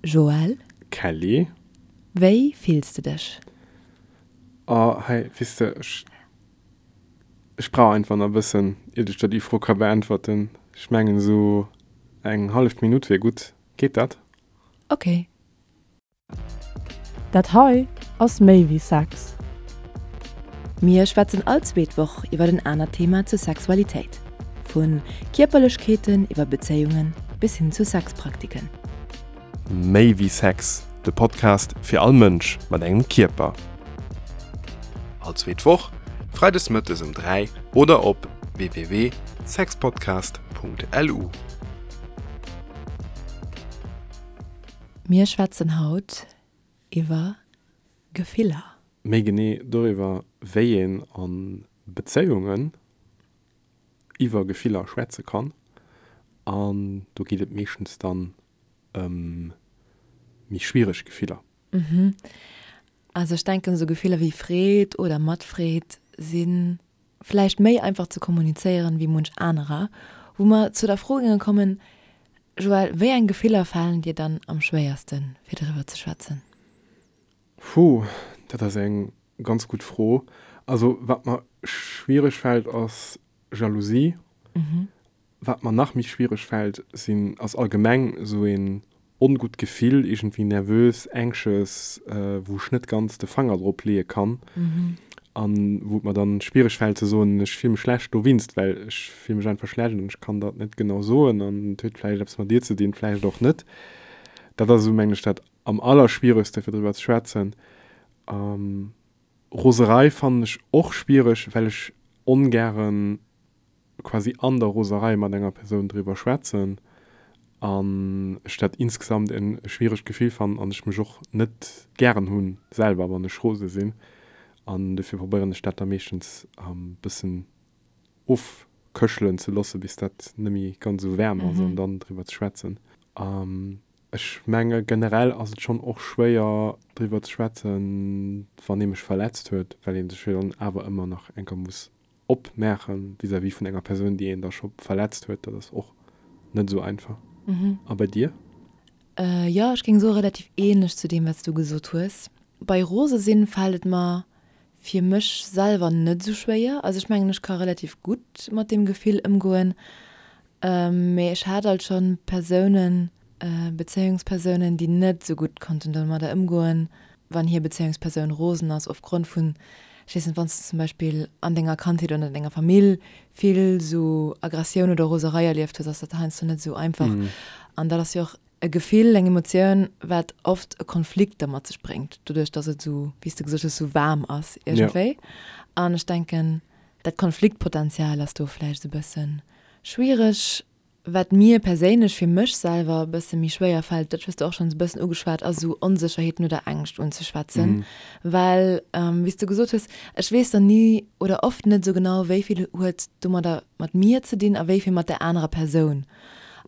Joël. Kelly. Wéi fills de dech? Oh, hei, weess de, ech, ech brauch einfach nach e bëssen, iert ech der déi Fro ka beäntwerten. Ech mengen, esou eng hallef Minutt wier gutt. Geet dat? Ok. Dat hei ass méi wéi Sex. Mir schwätzen all zweet Woch iwwer en anert Thema zur Sexualitéit. Vu Kierperlechkeeten iwwer Bezéiungen bis hin zu Sexpraktiken. Méi wéi Sex, de Podcast fir all Mënsch mat engem Kierper. All zweet Woch, freides mëttes um 3 oder op www.sexpodcast.lu. Mir schwätzen haut iwwer Gefiller. Méi genee doriwwer, wéi een a Bezéiungen iwwer Gefiller schwätze kann. An do geet et meeschtens dann ëm méi schwiereg Gefiller. Also ech denken, esou Gefiller wéi Freed oder Matfreed si vläicht méi einfach ze kommunizéieren wéi munch anerer. Wou mer zu der Fro géinge kommen, Joël, wéi eng Gefiller falen dir dann am schwéiersten, fir driwwer ze schwätzen? Puh, dat ass eng ganz gutt Fro. Also wat mer schwiereg fält ass Jalousie. Wat mer nach méi schwiereg fält, sinn, ass allgemeng esou een ongutt Gefill, iergendwéi nervös, anxious, wou ech net ganz de Fanger drop leeë kann an wou et mer dann schwiereg fält ze soen, ech fill mech schlecht dowinst, well ech fill mech einfach schlecht an ech kann dat net genau soen an et huet vläicht eppes mat dir ze dinn, vläicht och net. Dat ass esou, mengen ech, dat am allerschwieregste fir driwwer ze schwätzen. Roserei fannen ech och schwiereg, well ech ongären quasi an der Roserei mat enger Persoun driwwer schwätzen an ech dat insgesamt en schwieregt Gefill fannen an ech mech och net gären hunn selwer wann ech rose sinn an dofir probéieren ech dat da meeschtens e bëssen ofköchelen ze loossen bis dat net méi ganz esou waarm ass an dann driwwer ze schwätzen. Ech menge generell ass et schonn och schwéier driwwer ze schwätzen wann ee mech verletzt huet, well ee sech jo dann awer ëmmer nach eng Kéier muss opmaachen vis-à-vis vun enger Persoun, déi een da scho verletzt huet, dat ass och net esou einfach. A bei dir? Jo, ech géing soe relativ ähnlech zu deem, wat s du gesot hues. Bei rose sinn fält et mer fir mech selwer net esou schwéier. Also ech mengen, ech ka relativ gutt mat deem Gefill ëmgoen. Mee ech hat alt schonn Persounen, Bezéiungspersounen, déi net esou gutt konnten domadder ëmgoen, wann hir Bezéiungspersoun rosen ass opgrond vun, ech weess net, wann s de zum Beispill an denger Kandheet oder an denger Famill vill esou Aggressioun oder Roserei erlieft hues, ass dat heiansdo net esou einfach. An dat ass jo och e Gefill, eng Emotioun, wat oft e Konflikt da mat sech bréngt, doduerch datt et esou, wéi s de gesot hues, esou waarm ass iergendwéi. An ech denken, dat Konfliktpotenzial ass do vläicht esou e bësse schwiereg. Wat mir perséinlech fir mech selwer e bësse méi schwéier fält, dat hues de och schonns e bëssen ugeschwat, ass esou Onsécherheeten oder Ängscht unzeschwätzen. Well, wéi s de gesot hues, ech weess dann ni oder oft net esou genau, wéi vill huet domadder mat mir ze dinn a wéi vill mat där anerer Persoun.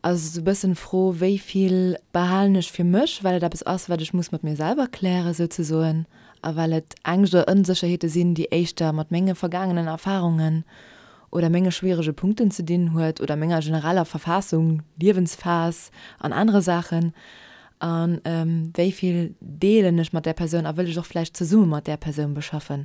Also esou e bëssen d'Fro, wéi vill behalen ech fir mech, well et eppes ass, wat ech muss mat mir selwer klären souzesoen a well et Ängscht oder Onsécherheete sinn, déi éischter mat menge vergaangenen Erfarungen oder menge schwierege Punkten ze dinn huet oder menger genereller Verfassung, Liewensphas an anere Saachen a wéi vill deelen ech mat där Persoun a wëll ech och vläicht zesumme mat där Persoun beschaffen.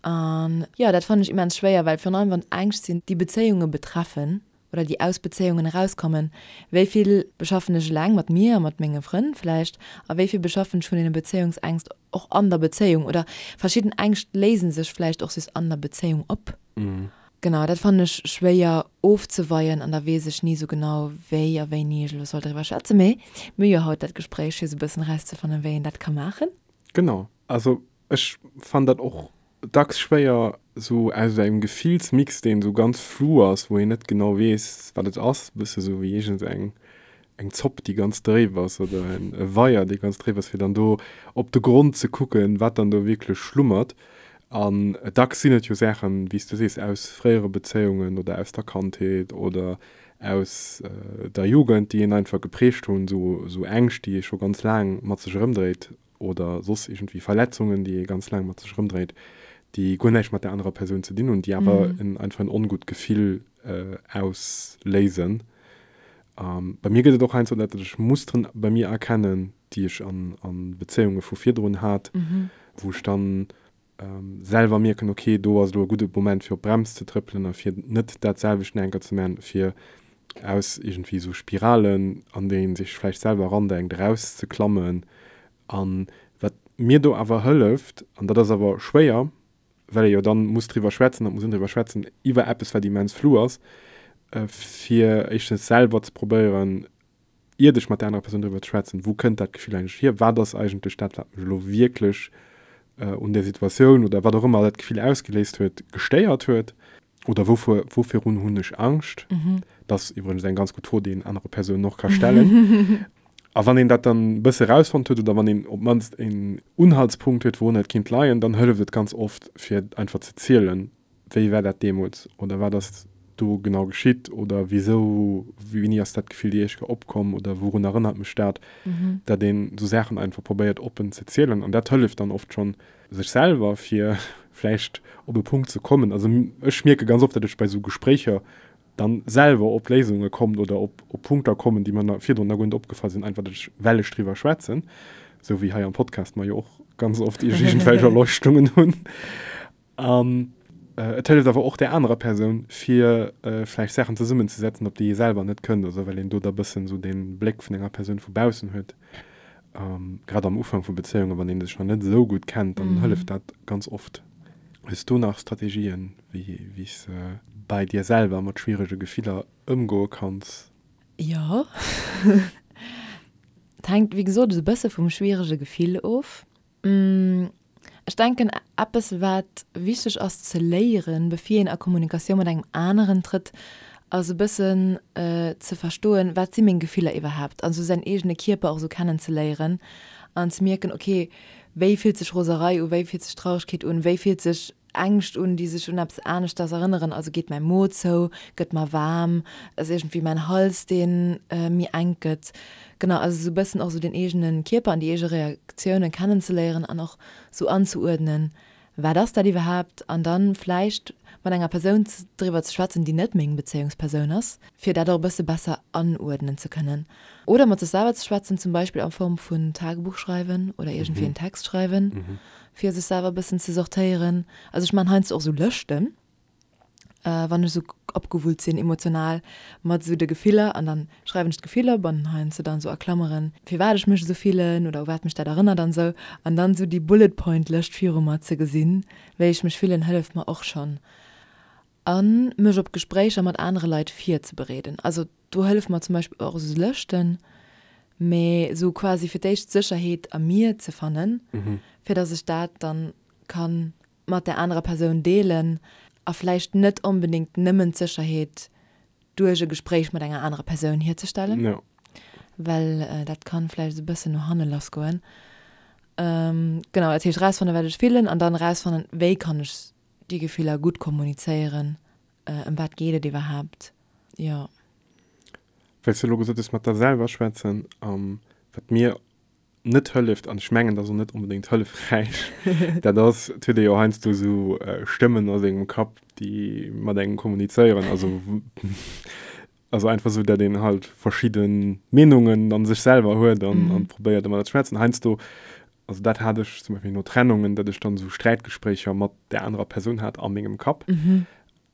An jo, dat fannen ech immens schwéier, well virun allem wann et Ängscht sinn, déi Bezéiunge betreffen oder déi aus Bezéiungen erauskommen, wéi vill beschaffen ech eleng mat mir a mat menge Frënn vläicht a wéi vill beschaffen ech vun deene Bezéiungsängst och an der Bezéiung oder verschidden Ängscht léise sech vläicht och just an der Bezéiung op. Genau, dat fannen ech schwéier ofzeweien an da weess ech ni sou genau wéi a wéini ech elo soll driwwer schwätzen. Mee mir hu jo haut dat Gespréich fir sou e bëssen erauszefannen, wéi een dat ka maachen. Genau, also ech fannen dat och dacks schwéier, sou aus engem Gefillsmix, deen sou ganz flou ass, wou een net genau weess, wat et ass, e bësse sou wéi iergend eng eng Zopp, déi ganz dréif ass, oder en e Weier, dee ganz dréif ass, fir dann do op de Grond ze kucken, wat dann do wierklech schlummert. An dacks sinn et jo Saachen, wéi s du sees, aus fréiere Bezéiungen oder aus der Kandheet oder aus der Jugend, déi een einfach geprägt hunn, sou sou Ängscht, déi ee scho ganz laang mat sech erëmdréit. oder soss iergendwéi Verletzungen, déi ee ganz laang mat sech erëmdréit, déi guer näischt mat där anerer Persoun ze dinn hunn, déi awer en einfach en ongutt Gefill ausléisen. Bei mir gëtt et och heiansdo dat, datt ech Musteren bei mir erkennen, déi ech an Bezéiunge vu virdrun hat, wou ech dann selwer mierken, ok, do ass elo e gudde Moment fir op d'Brems ze trëppelen a fir net dat selwecht nach eng Kéier ze maachen, fir aus iergendwéi esou Spiralen, an déi ee sech vläicht selwer erandenkt, erauszeklammen. A wat mir do awer hëlleft, an dat ass awer schwéier, well ee jo dann muss driwwer schwätzen, et muss een driwwer schwätzen iwwer eppes, wat immens flou ass, fir éischtens selwer ze probéieren, iert ech mat där anerer Persoun driwwer ze schwätzen, wou kënnt dat Gefill eigentlech hier, wat ass eigentlech dat, wat mech elo wierklech un där Situatioun oder wat och ëmmer dat Gefill ausgeléist huet, gestéiert huet oder wouvir, wouvirun hunn ech Angscht. Dat ass iwwregens eng ganz gutt Fro, déi een anere Persounen och ka stellen. A wann een dat dann e bësse rausfonnt huet oder wann een op d'mannst een Unhaltspunkt huet, wourun et kinnt leien, dann hëlleft et ganz oft, fir einfach ze zielen, wéi war dat deemools oder wat ass do genau geschitt oder wisou, wéini ass dat Gefill déi éischt Kéier opkomm oder wourun erënnert mech dat, dat een esou Saachen einfach probéiert oppen ze zielen. An dat hëlleft dann oft schonn, sech selwer fir vläicht op e Punkt ze kommen. Also ech mierke ganz oft, datt ech bei esou Gespréicher dann selwer op Léisunge kommt oder op op Punkter kommen, déi mer virdrun nach guer net opgefall sinn, einfach datt ech, well ech driwwer schwätzen, esou wéi hei am Podcast mer jo och ganz oft iergendwelch Erleuchtungen hunn. An et hëlleft awer och där anerer Persoun, fir vläicht Saachen zesummenzesetzen, op déi ee selwer net kënnt, also well een do da bëssen esou dee Bléck vun enger Persoun vu baussen huet. Grad am Ufank vu Bezéiungen, wann ee sech nach net esou gutt kennt, dann hëlleft dat ganz oft. Hues du nach Strategien, wéi s de bei dir selwer mat schwierege Gefiller ëmgoe kanns? Jo. Et hänkt, wéi gesot, esou e bësse vum schwierege Gefill of. Ech denken, eppes wat wichteg ass ze léieren, bevir een a Kommunikatioun mat engem aneren trëtt, ass e bëssen ze verstoen, wat si meng Gefiller iwwerhaapt? An esou säin eegene Kierper och esou kennen ze léieren an ze mierken, ok, wéi fillt sech Roserei u, wéi fillt sech Traurigkeet un, wéi fillt sech Ängscht un, déi sech un eppes aneschters erënneren, also geet mäi Mo zou, gëtt mer waarm, ass iergendwéi mäin Hals dee méi enk gëtt. Genau, also esou e bëssen och esou den eegene Kierper an déi eege Reaktiounen kennenzeléieren an och esou anzeuerdnen, wat ass dat iwwerhaapt, an dann vläicht mat enger Persoun driwwer ze schwätzen, déi net meng Bezéiungspersoun ass, fir dat och e bësse besser anuerdnen ze kënnen. Oder mat sech selwer ze schwätzen, zum Beispill a Form vun Tagebuch schreiwen oder iergendwéi en Text schreiwen, fir sech selwer e bëssen ze sortéieren. Also ech maachen heiansdo och esou Lëschten, wann ech esou opgewullt sinn emotional, mat esou de Gefiller an dann schreiwen ech d'Gefiller op an heiansdo dann esou a Klammeren, firwat ech mech esou fillen oder u wat mech dat erënnert an esou. An dann esou déi Bullet Point Lëscht viru mer ze gesinn, wéi ech mech fillen, hëlleft mer och schonn. A mech op Gespréicher mat anere Leit virzebereeden. Also do hëlleft mer zum Beispill och esou Lëschten, mee esou quasi fir d'éischt d'Sécherheet a mir ze fannen, fir datt ech dat dann kann mat där anerer Persoun deelen a vläicht net onbedéngt nëmmen d'Sécherheet duerch e Gespréich mat enger anerer Persoun hierzestellen, well dat kann vläicht esou e bëssen no hanne lassgoen. Genau, dat heescht erausfannen, wat ech fillen an dann erausfannen, wéi kann ech déi Gefiller gutt kommunizéieren, ëm wat geet et iwwerhaapt, jo. Well s de elo gesot hues, mat der selwer schwätzen, wat mir net hëlleft, an ech mengen, dat ass och net onbedéngt hëllefräich, dat ass, et huet ee jo heiansdo esou Stëmmen a sengem Kapp, déi mat engem kommunizéieren, also also einfach esou, datt een halt verschidde Meenungen an sech selwer huet an an probéiert ëmmer dat ze schwätzen. Heiansdo, also dat hat ech zum Beispill no Trennungen, datt ech dann esou Sträitgespréicher mat där anerer Persoun hat a mengem Kapp.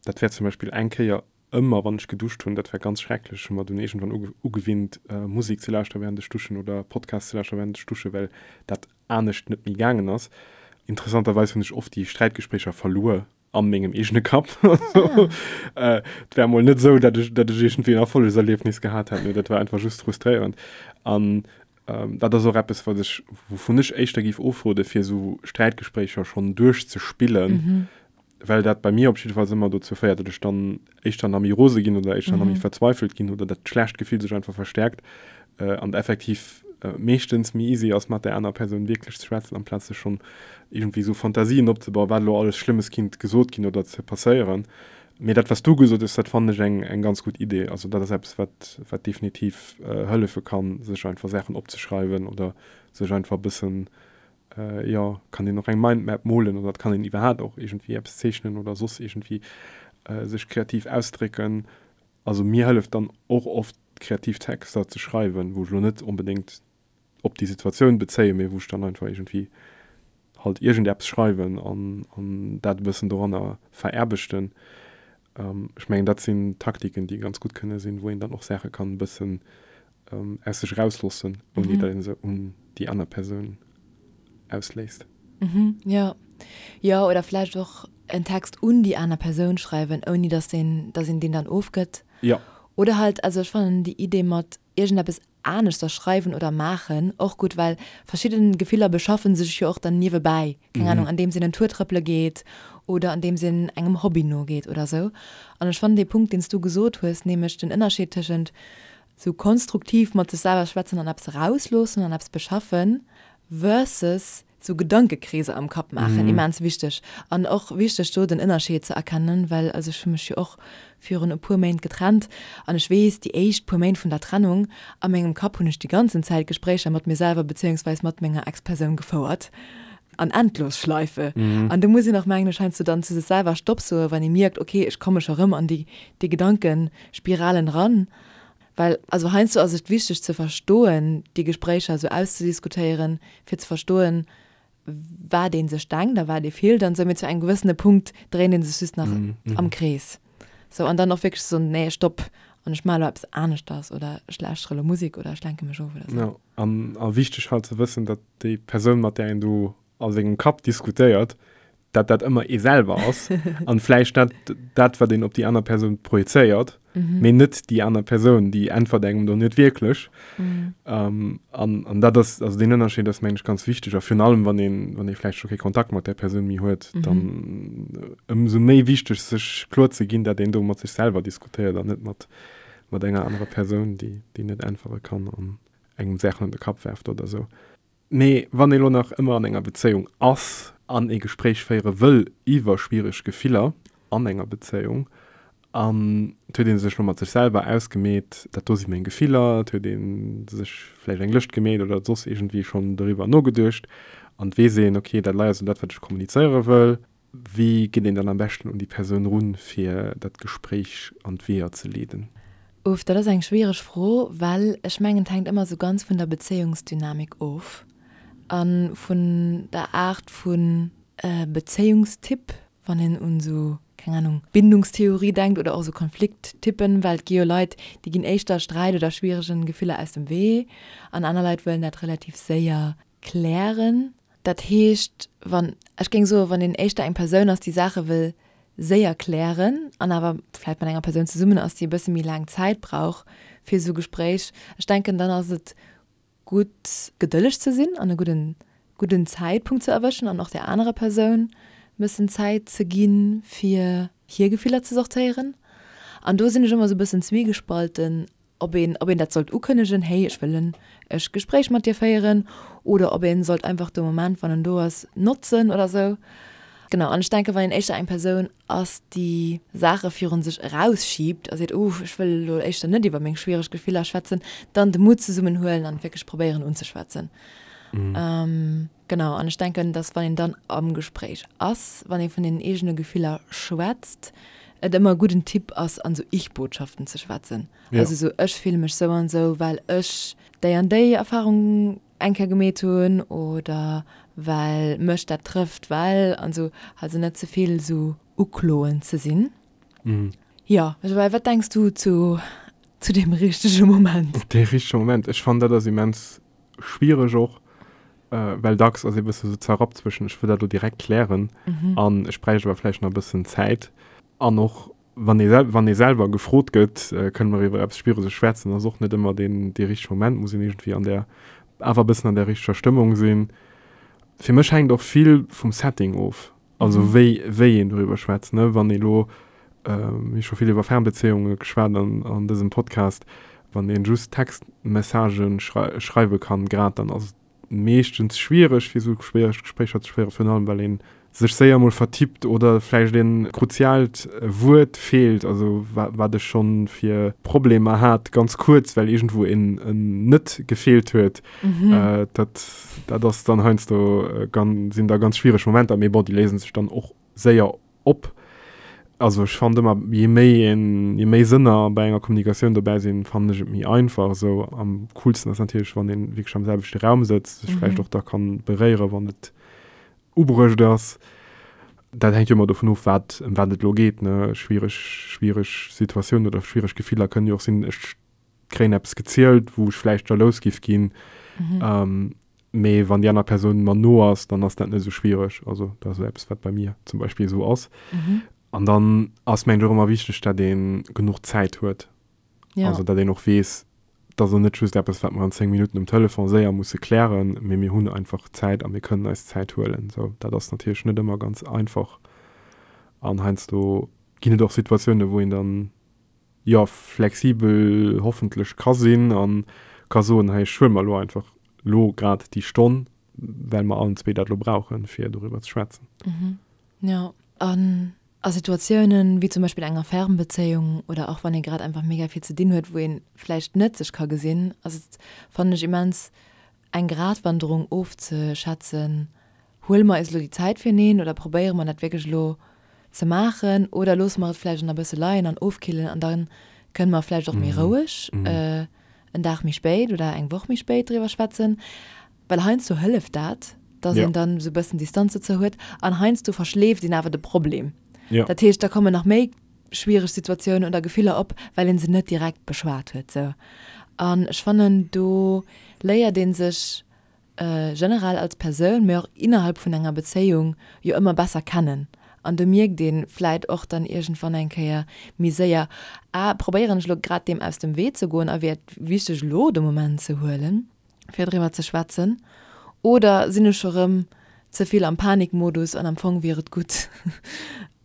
Dat war zum Beispill eng Kéier Ëmmer wann ech geduscht hunn, dat war ganz schrecklech, hu mer dunn iergendwann ugewinnt Musek ze lauschteren während ech duschen oder Podcast ze lauschteren während ech dusche well dat anescht net méi gaangen ass. Interessanterweis hunn ech oft déi Sträitgespréicher verluer a mengem eegene Kapp. Et war emol net esou, dat ech dat ech iergendwéi en Erfollegserliefnis gehat hätt, mee dat war einfach just frustréierend. An dat ass och eppes wat ech wouvun ech éischter géif ofrode fir esou Sträitgespréicher schonn duerchzespillen, well dat bei mir op jiddefalls ëmmer dozou féiert, datt ech dann éischter nach méi rose ginn oder éischter nach méi verzweifelt ginn oder dat schlecht Gefill sech einfach verstärkt an effektiv meeschtens méi easy ass, mat där aner Persoun wierklech ze schwätzen, amplaz sech schonn iergendwéi esou Fantasien opzebauen, wat elo alles Schlëmmes kinnt gesot ginn oder ze passéieren. Mee dat, wat s du gesot hues, dat fannen ech eng, eng ganz gutt Idee. Also dat ass eppes, wat, wat definitiv hëllefe kann, sech einfach Saachen opzeschreiwen oder sech einfach e bëssen jo, kann een och eng Mindmap molen oder et kann een iwwerhaapt och iergendwéi eppes zeechnen oder soss iergendwéi sech kreativ ausdrécken. Also mir hëlleft dann och oft. kreativ Texter ze schreiwen, wou ech elo net onbedéngt op déi Situatioun bezéien, mee wou ech dann einfach iergendwéi halt iergendeppes schreiwen an an dat e bëssen doranner veraarbechten. Ech mengen, dat sinn Taktiken, déi ganz gutt kënne sinn, wou een dann och Saache kann e bëssen aus sech erausloossen, ouni datt ee se un déi aner Persoun ausléisst. Jo, jo, oder vläicht och en Text un déi aner Persoun schreiwen, ouni datt een, datt een deen dann ofgëtt. Jo. Oder halt, also ech fannen déi Idee mat iergendeppes aneschters schreiwen oder maachen och gutt, well verschidden Gefiller beschaffen sech jo och dann niewebäi, keng Ahnung, andeems een en Tour trëppele geet oder andeems een engem Hobby nogeet oder sou. An ech fannen dee Punkt, deen s du gesot hues, nämlech den Ënnerscheed tëschent sou konstruktiv mat sech selwer schwätzen an eppes erausloossen an eppes beschaffen versus sou Gedankekreeser am Kapp maachen, immens wichteg. An och wichteg do den Ënnerscheed ze erkennen, well also ech hu mech jo och virun e puer Méint getrennt an ech weess, déi éischt puer Méint vun der Trennung, a mengem Kapp hunn ech déi ganzen Zäit Gespréicher mat mir selwer bezéiungsweis mat menger Ex-Persoun gefouert an Endlosschleife. An do muss een och, mengen ech, heiansdo dann zu sech selwer Stopp soen, wann ee mierkt, okay, ech komme scho rëm an déi déi Gedankespiralen eran. Well also heiansdo ass et wichteg ze verstoen, déi Gespréicher esou auszediskutéieren, fir ze verstoen, wat ee sech denkt a wat ee fillt an esou, mee zu engem gewëssene Punkt dréint ee sech just nach am Krees. Sou, an dann och wierklech ze soen, nee, stopp, an ech maache elo eppes aneschters oder ech lauschtere elo Musek oder ech lenke mech of oder sou. Jo, an a wichteg halt ze wëssen, datt déi Persoun, mat där een do a sengem Kapp diskutéiert, dat dat ëmmer ee selwer ass an vläicht dat, dat wat een op déi aner Persoun projezéiert, mhm. mee net déi aner Persoun, déi äntwert engem do net wierklech. Mhm. Ähm, an, an dat ass, also den Ënnerscheed ass mengen ech ganz wichteg a virun allem wann een, wann ee vläicht scho kee Kontakt mat där Persoun méi huet, mhm. dann äh, ëmsou méi wichteg sech kloer ze ginn, dat een do mat sech selwer diskutéiert an net mat, mat enger anerer Persoun, déi, déi net äntwere kann an engem Saachen an de Kapp werft oder sou. Mee wann ee lo nach ëmmer an enger Bezéiung ass an ee Gespréich féiere wëll iwwer schwiereg Gefiller an enger Bezéiung an et huet ee sech lo mat sech selwer ausgemeet, dat do si meng Gefiller, et huet ee sech vläicht eng Lëscht gemeet oder soss iergendwéi schonn doriwwer nogeduecht an et weess een, ok, dat lei ass elo dat wat ech kommunizéiere wëll. Wéi geet een dann am beschten un déi Persoun run, fir dat Gespréich an d'Weeër ze leeden? Uff, dat ass eng schwiereg Fro, well ech mengen, et hänkt ëmmer esou ganz vun der Bezéiungsdynamik of a vun der Aart vu Bezéiungstyp, wann een un esou, keng Anung, Bindungstheorie denkt oder och esou Konflikttypen, well et gi jo Leit, déi ginn éischter Sträit oder schwieregen Gefiller aus dem Wee an aner Leit wëllen dat relativ séier klären. Dat heescht, wann, ech géing soen, wann een éischter eng Persoun ass, déi Saache wëll séier klären an awer vläicht mat enger Persoun zesummen ass, déi e bësse méi laang Zäit brauch fir esou Gespréich, ech denken, dann ass et gutt, gedëlleg ze sinn an e gudden, gudden Zäitpunkt ze erwëschen an och där anerer Persoun e bëssen Zäit ze ginn, fir hir Gefiller ze sortéieren. An do sinn ech ëmmer esou e bëssen zwiegespalten, ob een, ob een dat sollt ukënnegen, hey, ech wëll en e Gespréich mat dir féieren, oder ob een sollt einfach de Moment, wann en do ass, notzen oder sou. Genau, an ech denken, wann een éischter eng Persoun ass, déi Saache virun sech erausschiebt a seet, uh, ech wëll elo éischter net iwwer meng schwiereg Gefiller schwätzen, dann de Mut zesummenhuelen an wierklech probéieren unzeschwätzen. Genau, an ech denken, dass wann een dann am Gespréich ass, wann ee vun den eegene Gefiller schwätzt, et ëmmer e gudden Tipp ass, an esou Ich-Botschaften ze schwätzen. Ja. Also esou, ech fille mech sou an esou, well ech déi an déi Erfarung eng Kéier gemeet hunn oder well mech dat trëfft, well an esou. Also net ze vill esou ukloend ze sinn. Mhm. Jo, well wat denks du zu, zu deem richtege Moment? Dee richtege Moment, ech fannen dat ass immens schwiereg och, well dacks ass ee bësse sou zerrappt zwëschen ech wëll dat elo direkt klären an ech bräicht awer vläicht nach e bëssen Zäit. An och wann ee sel wann ee selwer gefrot gëtt, kënne mer iwwer eppes Schwiereges schwätzen, ass och net ëmmer deen dee richtege Moment, muss een iergendwéi an där awer e bëssen an där richteger Stëmmung sinn. Fir mech hänkt och vill vum Setting of. Also wéi, wéi een doriwwer schwätzt, ne? Wann ee lo, mir hu scho vill iwwer Fernbezéiunge geschwat an, an dësem Podcast, wann een just Textmessagen schrei, schreiwe kann grad, dann ass et meeschtens schwiereg fir esou schwiereg Gespréicher ze féieren, virun allem well ee sech séier emol vertippt oder vläicht een kruziaalt Wuert feelt, also wa, wat ech schonn fir Problemer hat, ganz kuerz, well iergendwou een en net gefeelt huet. Dat, dat ass dann heiansdo, sinn da ganz schwiereg Momenter, mee bon, déi léise sech dann och séier op. Also ech fannen ëmmer, je méi een, je méi Sënner bei enger Kommunikatioun dobäi sinn, fannen ech et méi einfach esou. Am coolsten ass natierlech, wann een wierklech am selwechte Raum sëtzt, sech vläicht och da kann beréieren, wann et ubruecht ass. Dat hänkt jo ëmmer dovun of, wat, ëm wat et elo geet, ne. Schwiereg, schwiereg Situatiounen oder schwiereg Gefiller kënnen jo och sinn, ech kréien eppes gezielt, wou ech vläicht jalous giff ginn, mee wann déi aner Persoun mer no ass, dann ass dat net esou schwiereg. Also dat ass eppes, wat bei mir zum Beispill esou ass. An dann ass mengen ech och ëmmer wichteg, datt ee genuch Zäit huet. Also datt een och weess, dat ass elo net just eppes, wat mer an 10 Minutten um Telefon séier musse klären, mee mir hunn einfach Zäit a mir kënnen eis Zäit huelen. Sou, dat ass natierlech net ëmmer ganz einfach an heiansdo ginn et och Situatiounen, wou een dann, jo, flexibel hoffentlech ka sinn a ka soen, hei ech huele mer elo einfach elo grad déi Stonn, well mer allen zwee dat elo brauchen, fir doriwwer ze schwätzen. Jo, an a Situatiounen, wéi zum Beispill enger Fernbezéiung oder och wann ee grad einfach mega vill ze dinn huet, wou ee vläicht net sech ka gesinn, ass et, fannen ech, immens eng Gratwanderung ofzeschätzen, Huele mer eis elo déi Zäit fireneen oder probéiere mer dat wierklech elo ze maachen oder loosse mer et vläicht nach e bësse leien an ofkillen an da kënne mer vläicht och méi roueg en Dag méi spéit oder eng Woch méi spéit driwwer schwätzen. Well heiansdo hëlleft dat, dass een dann esou e bëssen Distanz dozou huet an heiansdo verschleeft een awer de Problem. Dat heescht, da kommen nach méi schwiereg Situatiounen oder Gefiller op, well ee se net direkt beschwat huet. Sou. An ech fannen, do léiert ee sech generell als Persoun, mee och innerhalb vun enger Bezéiung jo ëmmer besser kennen. An do mierkt ee vläit och dann iergendwann eng Kéier méi séier, ah, probéieren ech elo grad deem aus dem Wee ze goen a wier et wichteg elo de Moment ze huelen, fir driwwer ze schwätzen, oder sinn ech scho rëm ze vill am Panikmodus an am Fong wier et gutt,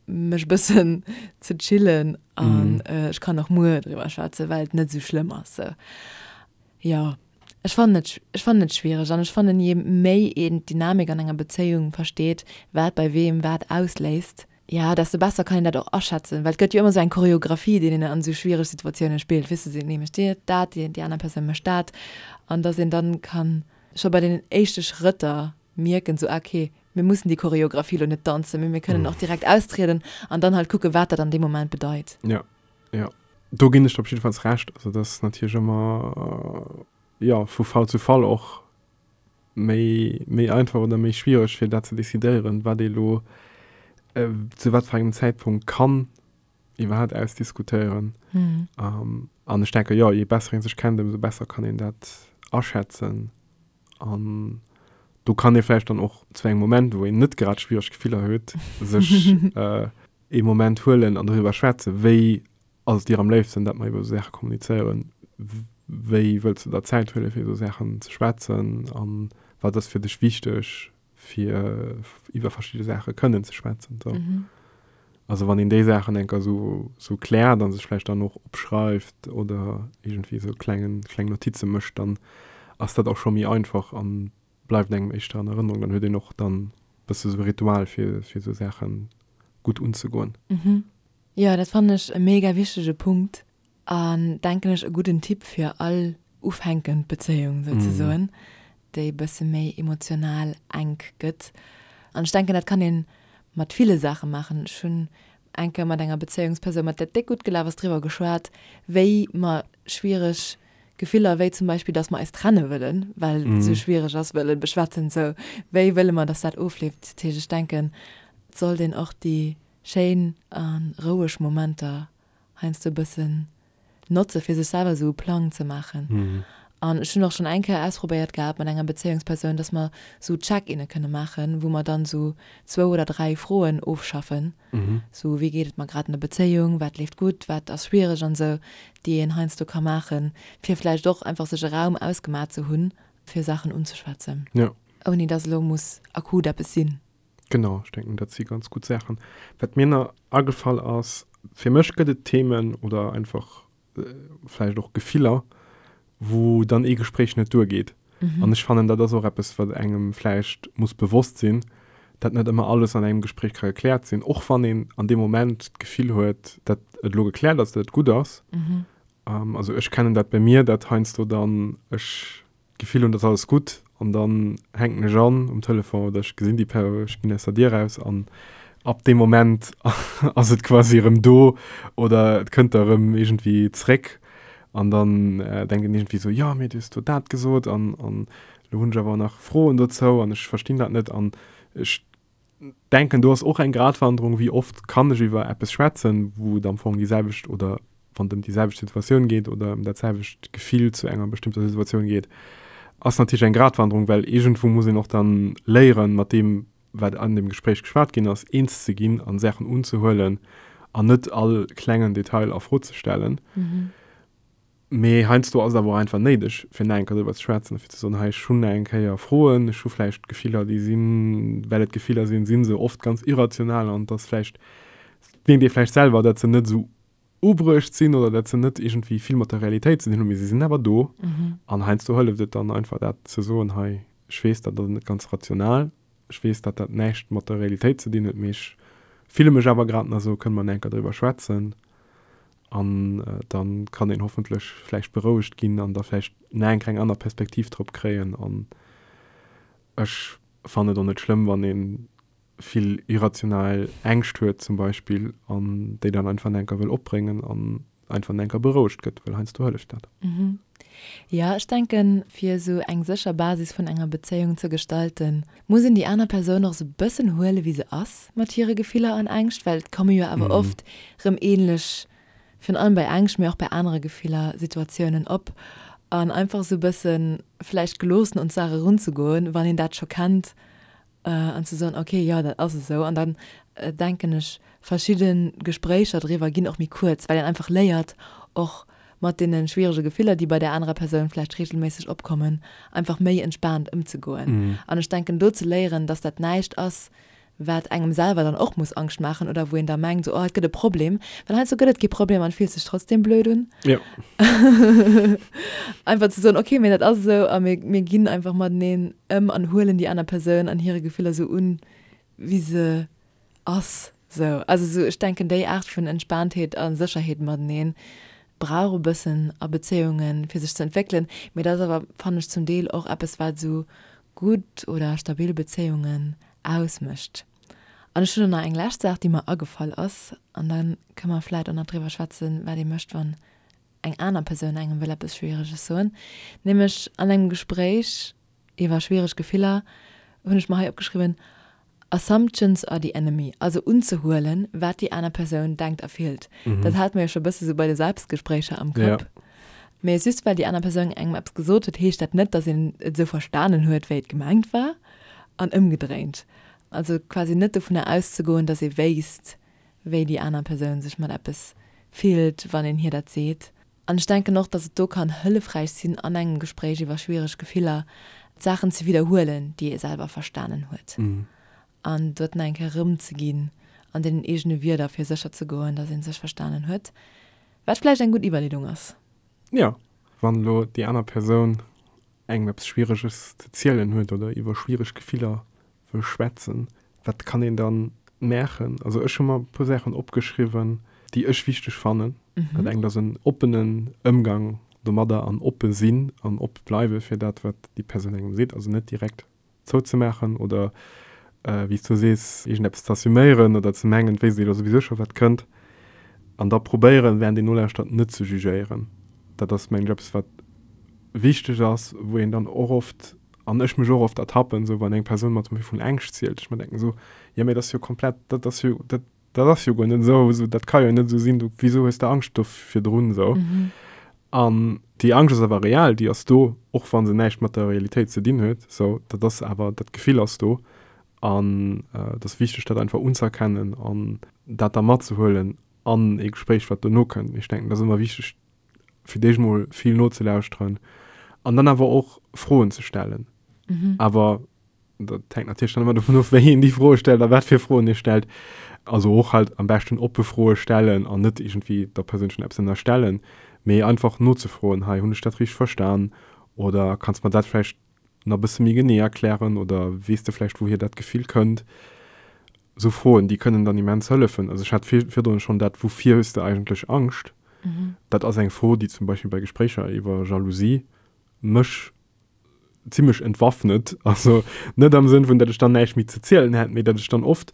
mech e bëssen ze chillen an ech kann och muer driwwer schwätzen, well et net esou schlëmm ass. Sou, jo, ech fannen et, ech fannen et schwiereg an ech fannen, je méi een d'Dynamik an enger Bezéiung versteet, wat bei weem wat ausléist, jo, desto besser kann een dat och aschätzen, well et gëtt jo ëmmer esou eng Choreographie, déi een an esou schwiereg Situatioune spillt, weess de, dee mécht dat, déi aner Persoun mécht dat an dass een dann kann scho bei deenen éischte Schrëtter mierken, sou, ah, okay, mir mussen déi Choreographie lo net danzen, mee mir kënnen och direkt austrieden an dann halt kucken, wat dat an deem Moment bedeit. Jo, jo, do ginn ech der op jiddefalls Recht. Also dat ass natierlech ëmmer, jo, vu Fall zu Fall och méi, méi einfach oder méi schwiereg, fir dat ze decidéieren, wat ee lo zu wat fir engem Zäitpunkt kann iwwerhaapt ausdiskutéieren. An ech denke, jo, je besser ee sech kennt, ëmsou besser kann een dat aschätzen. An do kann ee vläicht dann och zu engem Moment, wou een net grad schwiereg Gefiller huet, sech ee Moment huelen an doriwwer schwätzen, wéi ass et dir am léifsten, datt mer iwwer esou Saache kommunizéieren, wéi wëlls du der Zäit huelen, fir esou Saachen ze schwätzen an wat ass fir dech wichteg, fir iwwer verschidde Saache kënnen ze schwätzen. So. Mhm. Also wann een déi Saachen enker so, so kläert an sech vläicht dann och opschreift oder irgendwie so klengen, kleng Notize mécht, dann ass dat och scho méi einfach an bleift engem éischter an Erënnerung. Dann huet een och dann bësse sou e Ritual fir, fir sou Saache gutt unzegoen. Mhm. Jo, dat fannen ech e mega wichtege Punkt. An denken ech e gudden Tipp fir all ufänkend Bezéiung souzesoen, déi e bësse méi emotional enk gëtt. An ech denken dat kann ee mat ville Saache maachen. Ech hunn eng Kéier mat enger Bezéiungspersoun, mat där et déck gutt gelaf ass, driwwer geschwat, wéi mer schwiereg Gefiller, wéi zum Beispill, datt mer eis trenne wëllen, well et esou schwiereg ass, wëlle beschwätzen. Sou, wéi wëlle mer, datt dat ofleeft? Dat heescht, ech denken, et sollt een och déi schéin a roueg Momenter heiansdo e bëssen notze fir sech selwer esou e Plang ze maachen. An ech hunn och schonn eng Kéier ausprobéiert gehat mat enger Bezéiungspersoun, dass mer esou Check-inne kënne maachen, wou mer dann esou zwou oder dräi Froen ofschaffen, esou wéi geet et mer grad an der Bezéiung, wat leeft gutt, wat ass schwiereg an esou, déi een heiansdo ka maachen, fir vläicht och einfach sech e Raum ausgemaach ze hunn, fir Saachen unzeschwätzen, ouni dass elo muss akut eppes sinn. Genau, ech denken, dat si ganz gutt Saachen. Wat mir nach agefall ass, fir mech gëtt et Themen oder einfach vläicht och Gefiller, wou dann ee Gespréich net duergeet. An ech fannen, dat ass och eppes, wat engem vläicht muss bewosst sinn, dat net ëmmer alles an engem Gespréich ka gekläert sinn, och wann een an deem Moment d'Gefill huet, dat et elo gekläert ass, dat et gutt ass. Also ech kennen dat bei mir, dat heiansdo dann ech d'Gefill hunn, et ass alles gutt an dann hänken ech an um Telefon oder ech gesinn déi Per, ech ginn aus der Dier raus an. Ab deem Moment ass et quasi erëm do oder et kënnt da erëm iergendwéi zréck an dann denkt een iergendwéi esou, jo mee du hues do dat gesot an an elo hunn ech awer nach Froen dozou an ech verstinn dat net an ech denken do ass och eng Gratwanderung, wéi oft kann ech iwwer eppes schwätzen, wou et am Fong déi selwecht oder wann et ëm déi selwecht Situatioun geet oder ëm dat selwecht Gefill zu enger bestëmmter Situatioun geet, ass natierlech eng Gratwanderung, well iergendwou muss een och dann léieren, mat deem wat an deem Gespréich geschwat ginn ass, eens ze ginn an Saachen unzehuelen an net all klengen Detail a Fro ze stellen. Mee heiansdo ass et awer och einfach néideg, fir nach eng Kéier driwwer ze schwätzen a fir ze soen, hei, ech hunn nach eng Kéier Froen, ech hu vläicht Gefiller, déi sinn, well et Gefiller sinn, si se oft ganz irrational an et ass vläicht, mierkt ee vläicht selwer, datt se net esou ubruecht sinn oder datt se net iergendwéi vill mat der Realitéit ze dinn hunn, mee se sinn awer do. An heiansdo hëlleft et dann einfach, dat ze soen, hei, ech weess, dat ass net ganz rational, Ech weess, datt dat näischt mat der Realitéit ze dinn huet, mee ech fille mech awer grad nach esou, kënne mer nach eng Kéier driwwer schwätzen? An da kann een hoffentlech vläicht berouegt ginn an da vläicht nach eng Kéier eng aner Perspektiv drop kréien. An ech fannen et och net schlëmm, wann ee vill irrational Ängscht huet zum Beispill an déi dann einfach nach eng Kéier wëll opbréngen an einfach nach eng Kéier berouegt gëtt, well heiansdo hëlleft dat. Jo, ech denken, fir esou eng sécher Basis vun enger Bezéiung ze gestalten, muss een déi aner Persoun och esou bëssen huele wéi se ass mat hire Gefiller an Ängscht, well et komme jo awer oft rëm ähnlech, virun allem bei Ängscht, mee och bei anere Gefiller, Situatiounen op. An einfach esou bësse vläicht geloossen un d'Saach erunzegoen, wann een dat scho kennt an ze soen, okay, jo, dat ass esou. An dann denken ech, verschidde Gespréicher driwwer ginn och méi kuerz, well een einfach léiert, och mat deene schwierege Gefiller, déi bei där anerer Persoun vläicht reegelméisseg opkommen, einfach méi entspaant ëmzegoen. An ech denken, do ze léieren, dass dat näischt ass, wat engem selwer dann och muss Angscht maachen oder wou een da mengt, esou, oh, et gëtt e Problem, well heiansdo gëtt et kee Problem an et fillt sech trotzdem blöd un. Jo. Einfach ze soen, okay, mee dat ass esou a mir, mir ginn einfach mateneen ëm an huelen déi aner Persoun an hire Gefiller esou un, wéi se ass. Sou, also sou, ech denken, déi Aart vun Entspaantheet a Sécherheet mateneen brauch e bëssen a Bezéiungen, fir sech ze entwéckelen. Mee dat ass awer, fannen ech, zum Deel och eppes, wat esou gutt oder stabil Bezéiungen ausmécht. An ech hunn och nach eng lescht Saach, déi mer agefall ass, an da kënne mer vläit och nach driwwer schwätzen, wat ee mécht, wann eng aner Persoun engem wëll eppes Schwiereges soen. Nämlech an engem Gespréich iwwer schwiereg Gefiller hunn ech mer hei opgeschriwwen, Assumptions are the enemy, also unzehuelen, wat déi aner Persoun denkt a fillt. Dat hate mer jo scho e bësse sou bei de Selbstgespréicher am Kapp. Mee just well déi aner Persoun engem eppes gesot huet, heescht dat net, datt een et esou verstanen huet, wéi et gemengt war. An ëmgedréint. Also quasi net dovunner auszegoen, datt ee wéisst, wéi déi aner Persoun sech mat eppes fillt, wann een hir dat seet. An ech denken och, datt et do kann hëllefräich sinn, an engem Gespréich iwwer schwiereg Gefiller d'Saachen ze widderhuelen, déi ee selwer verstanen huet. An dort nach eng Kéier erëmzeginn an deenen eegene Wierder, fir sécher ze goen, datt ee sech verstanen huet. Wat vläicht eng gutt Iwwerleedung ass. Jo, wann elo déi aner Persoun engem eppes Schwiereges ze zielen huet oder iwwer schwiereg Gefiller wëll schwätzen, wat kann een dann maachen? Also ech hu mer e puer Saachen opgeschriwwen, déi ech wichteg fannen. Dat engt ass en oppenen Ëmgang domadder an oppe sinn an op bleiwe fir dat, wat déi Persoun engem seet. Also net direkt zouzemaachen oder, wéi s du sees, iergendeppes ze assuméieren oder ze mengen, et wéisst ee jo souwisou scho wat kënnt. An da probéieren, während een nolauschtert, net ze jugéieren. Dat ass, mengen ech, eppes, wat wichteg ass, wou een dann och oft, an ech mech och oft ertappen, esou wann eng Persoun mer zum Beispill vun Ängscht zielt, ech mer denken esou, jo mee dat ass jo komplett, dat ass jo, dat, dat ass jo guer net esou, esou dat ka jo net esou sinn, du, wisou hues de Angscht do virdrun esou? An déi Angscht ass awer real, déi ass do, och wa se näischt mat der Realitéit ze dinn huet, esou, dat ass awer, dat Gefill ass do an et ass wichteg dat einfach unzëerkennen an dat da matzehuelen an ee Gespréich wat dono kënnt. Ech denken, dat ass ëmmer wichteg fir d'éischt mol vill nozelauschteren an dann awer och Froen ze stellen. Mhm. Awer dat hänkt natierlech dann ëmmer dovun of, wéi een déi Froe stellt a wat fir Froen ee stellt. Also och halt am beschten oppe Froe stellen an net iergendwéi der Persoun schonn eppes ënnerstellen, mee einfach nozefroen, hei hunn ech dat richteg verstan oder kanns mer dat vläicht nach e bësse méi genee erklären oder weess de vläicht wouhier dat Gefill kënnt? Esou Froen, déi kënnen dann immens hëllefen. Also ech hat virdrun schonn dat, Wouvir hues de eigentlech Angscht? Dat ass eng Fro, déi zum Beispill bei Gespréicher iwwer Jalousie mech zimmlech entwaffnet. Also net am Sënn vun, datt ech dann näischt méi ze zielen hätt, mee datt ech dann oft.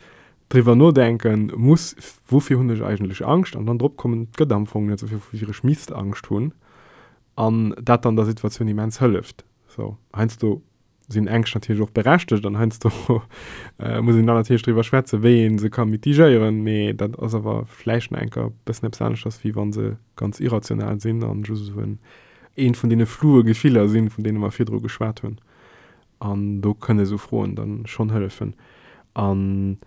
Driwwer nodenken muss, woufir hunn ech eigentlech Angscht an dann drop kommen, et gëtt am Fong net esou vill, woufir ech misst Angscht hunn an dat dann der Situatioun immens hëlleft. Sou, heiansdo sinn Ängscht natierlech och berechtegt an heiansdo muss een dann natierlech driwwer schwätzen, wéi ee se ka mitigéieren, mee dat ass awer vläicht nach enker e bëssen eppes aneschters, wéi wa se ganz irrational sinn an just esou en eent vun deene floue Gefiller sinn, vun deene mer virdru geschwat hunn. An do kënne esou Froen dann schonn hëllefen. An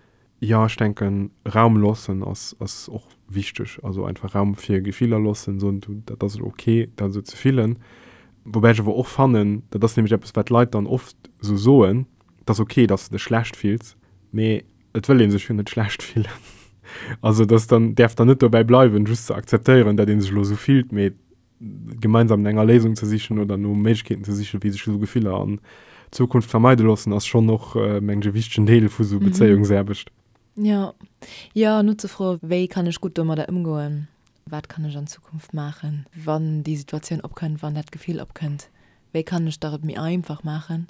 jo, ech denken, Raum loossen ass, ass och wichteg. Also einfach Raum fir Gefiller loossen, soen, du, dat ass elo ok, dat esou ze fillen. Woubäi ech awer och fannen, dat ass nämlech eppes, wat d'Leit dann oft esou soen, et ass ok, dass de dech schlecht fills, mee et wëll ee sech jo net schlecht fillen. Also dass dann, däerf dann net dobäi bleiwen, just ze akzeptéieren, dat ee sech elo esou fillt, mee gemeinsam no enger Léisung ze sichen oder no Méiglechkeeten ze sichen, wéi sech esou Gefiller an Zukunft vermeide loossen, ass schonn och, mengen ech, e wichtegen Deel vu sou Bezéiungsaarbecht. Jo, jo, nozefroen, wéi kann ech gutt domadder ëmgoen, wat kann ech an Zukunft maachen, wann déi Situatioun opkënnt, wann dat Gefill opkënnt, wéi kann ech der et méi einfach maachen.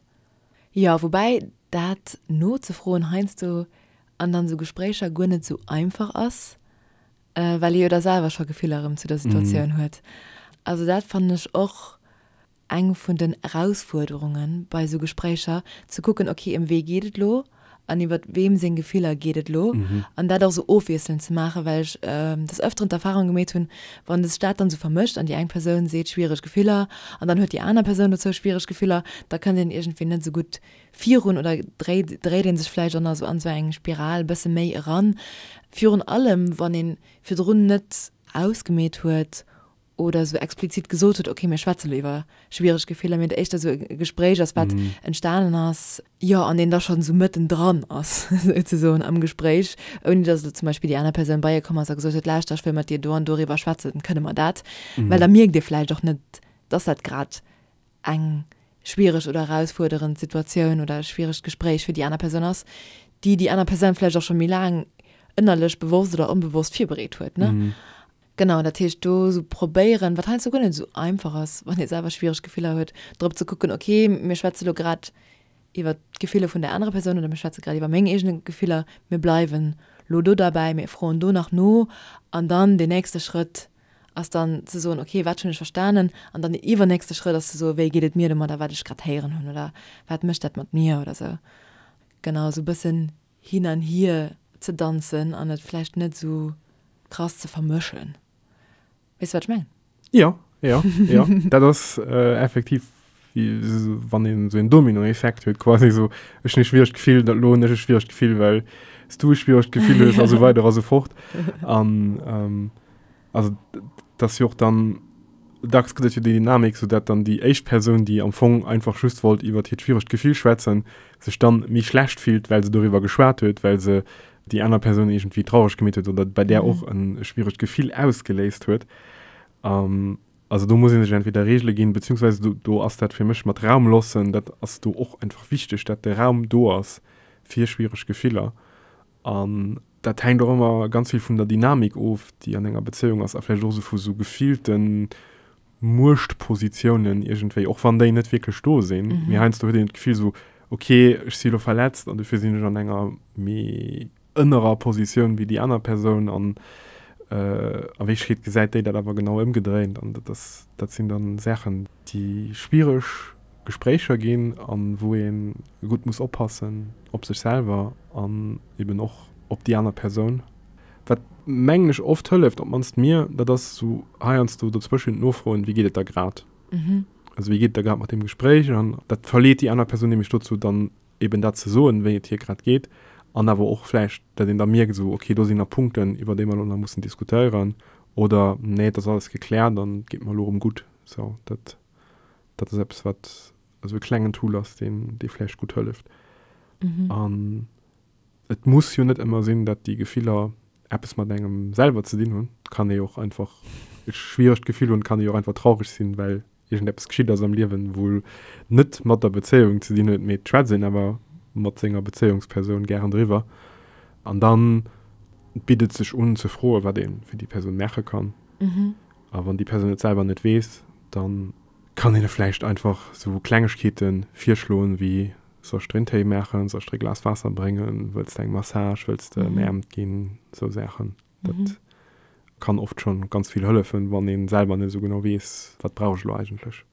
Jo, woubäi dat nozefroen heiansdo an dann esou Gespréicher guer net esou einfach ass, well ee jo da selwer scho Gefiller erëm zu der Situatioun huet. Also dat fannen ech och eng vun den Erausfuerderunge bei esou Gespréicher, ze kucken, ok, ëm wee geet et elo an iwwer weem seng Gefiller geet et elo an dat och esou ofwiesselnd ze maachen, well ech des Ëfteren d'Erfarung gemeet hunn, wann sech dat dann esou vermëscht an déi eng Persoun seet schwiereg Gefiller an dann huet déi aner Persoun dozou schwiereg Gefiller, da kënnt een iergendwéi net esou gutt virun oder dréit dréit ee sech vläicht och nach esou an esou eng Spiral e bësse méi eran. Virun allem wann ee virdrun net ausgemeet huet oder esou explizit gesot huet, okay mir schwätze lo iwwer schwiereg Gefiller, mee et éischter esou e Gespréich ass wat entstanen ass, jo an een da schonn esou mëtten dran ass souzesoen am Gespréich, ouni datt elo zum Beispill déi aner Persoun bei ee komm ass a gesot huet, lauschter ech wëll mat dir do an doriwwer schwätzen, kënne mer dat? Well da mierkt ee vläicht och net, datt dat grad eng schwiereg oder erausfuerderend Situatioun oder e schwieregt Gespréich fir déi aner Persoun ass, déi déi aner Persoun vläicht och scho méi laang ënnerlech bewosst oder onbewosst virbereet huet, ne? Genau, dat heescht do esou probéieren, wat heiansdo guer net esou einfach ass, wann ee selwer schwiereg Gefiller huet, drop ze kucken, okay, mir schwätze lo grad iwwer d'Gefiller vun der anerer Persoun oder mir schwätze grad iwwer meng eegene Gefiller, mir bleiwen lo do derbäi, mir froen do nach no an dann deen nächste Schrëtt ass dann ze soen, okay, wat hunn ech verstanen? An dann den iwwernächste Schrëtt ass ze soen, wéi geet et mir domadder, wat ech grad héieren hunn oder wat mécht dat mat mir oder sou. Genau, esou e bëssen hin an hier ze danzen an et vläicht net esou krass ze vermëschen. Weess de, wat ech mengen? Jo, jo, jo. Dat ass effektiv wéi wann een esou een Dominoeffekt huet quasi, esou ech hunn e schwieregt Gefill, dat elo hunn ech e schwieregt Gefill, well s du e schwieregt Gefill hues a sou weider a sou fort. An also et ass jo och dann, dacks gëtt et jo déi Dynamik, sou dat dann déi éischt Persoun, déi am Fong einfach just wollt iwwert hiert schwieregt Gefill schwätzen, sech dann méi schlecht fillt, well se doriwwer geschwat huet, well se déi aner Persoun iergendwéi traureg gemeet huet oder bei där och e schwieregt Gefill ausgeléist huet. Also do muss ee sech entweder Reegele ginn, beziehungsweise do, do ass dat fir mech mat Raum loossen, dat ass do och einfach wichteg, dat de Raum do ass fir schwiereg Gefiller. An dat hänkt och ëmmer ganz vill vun der Dynamik of, déi an enger Bezéiung ass a vläicht och esou vu sou gefillte Muechtpositiounen iergendwéi, och wann déi net wierklech do sinn. Mee heiansdo huet een d'Gefill esou, okay, ech si elo verletzt an dofir sinn ech an enger méi ënnerer Positioun wéi déi aner Persoun an a Wierklechkeet gesäit déi dat awer genau ëmgedréint an dat ass, dat sinn dann Saachen, déi schwiereg Gespréicher ginn an wou ee gutt muss oppassen op sech selwer an eben och op déi aner Persoun. Wat mengen ech oft hëlleft, op d'mannst mir, dat ass esou heiansdo dozwëschent nofroen, wéi geet et der grad? Also wéi geet et der grad mat deem Gespréich? An dat verleet déi aner Persoun nämlech dozou dann eben dat ze soen, wéi et hir grad geet, an awer och vläicht, dat een da mierkt esou, okay, do sinn nach Punkten, iwwer déi mer elo nach mussen diskutéieren, oder nee, et ass alles gekläert an et geet mer elo erëm gutt. Sou, dat, dat ass eppes, wat esou e klengen Tool ass, deen, dee vläicht gutt hëlleft. An et muss jo net ëmmer sinn, dat déi Gefiller eppes mat engem selwer ze dinn hunn. Et kann ee jo och einfach e schwieregt Gefill hunn, et kann ee jo och einfach traureg sinn, well iergendeppes geschitt ass am Liewen, wou net mat der Bezéiung ze dinn huet, mee et schwätzt een awer mat senger Bezéiungspersoun gären driwwer. An dann bitt et sech un ze froen, wat ee fir déi Persoun maache kann. A wann déi Persoun et selwer net weess, da kann een e vläicht einfach sou Klengegkeete virschloen, wéi. Soll ech der een Téi maachen? Soll ech der e Glas Waasser bréngen? Wëlls de eng Massage? Wëlls de ëmäermt ginn? Esou Saachen. Dat kann oft schonn ganz vill hëllefen, wann ee selwer net esou genau weess, wat brauch ech elo eigentlech.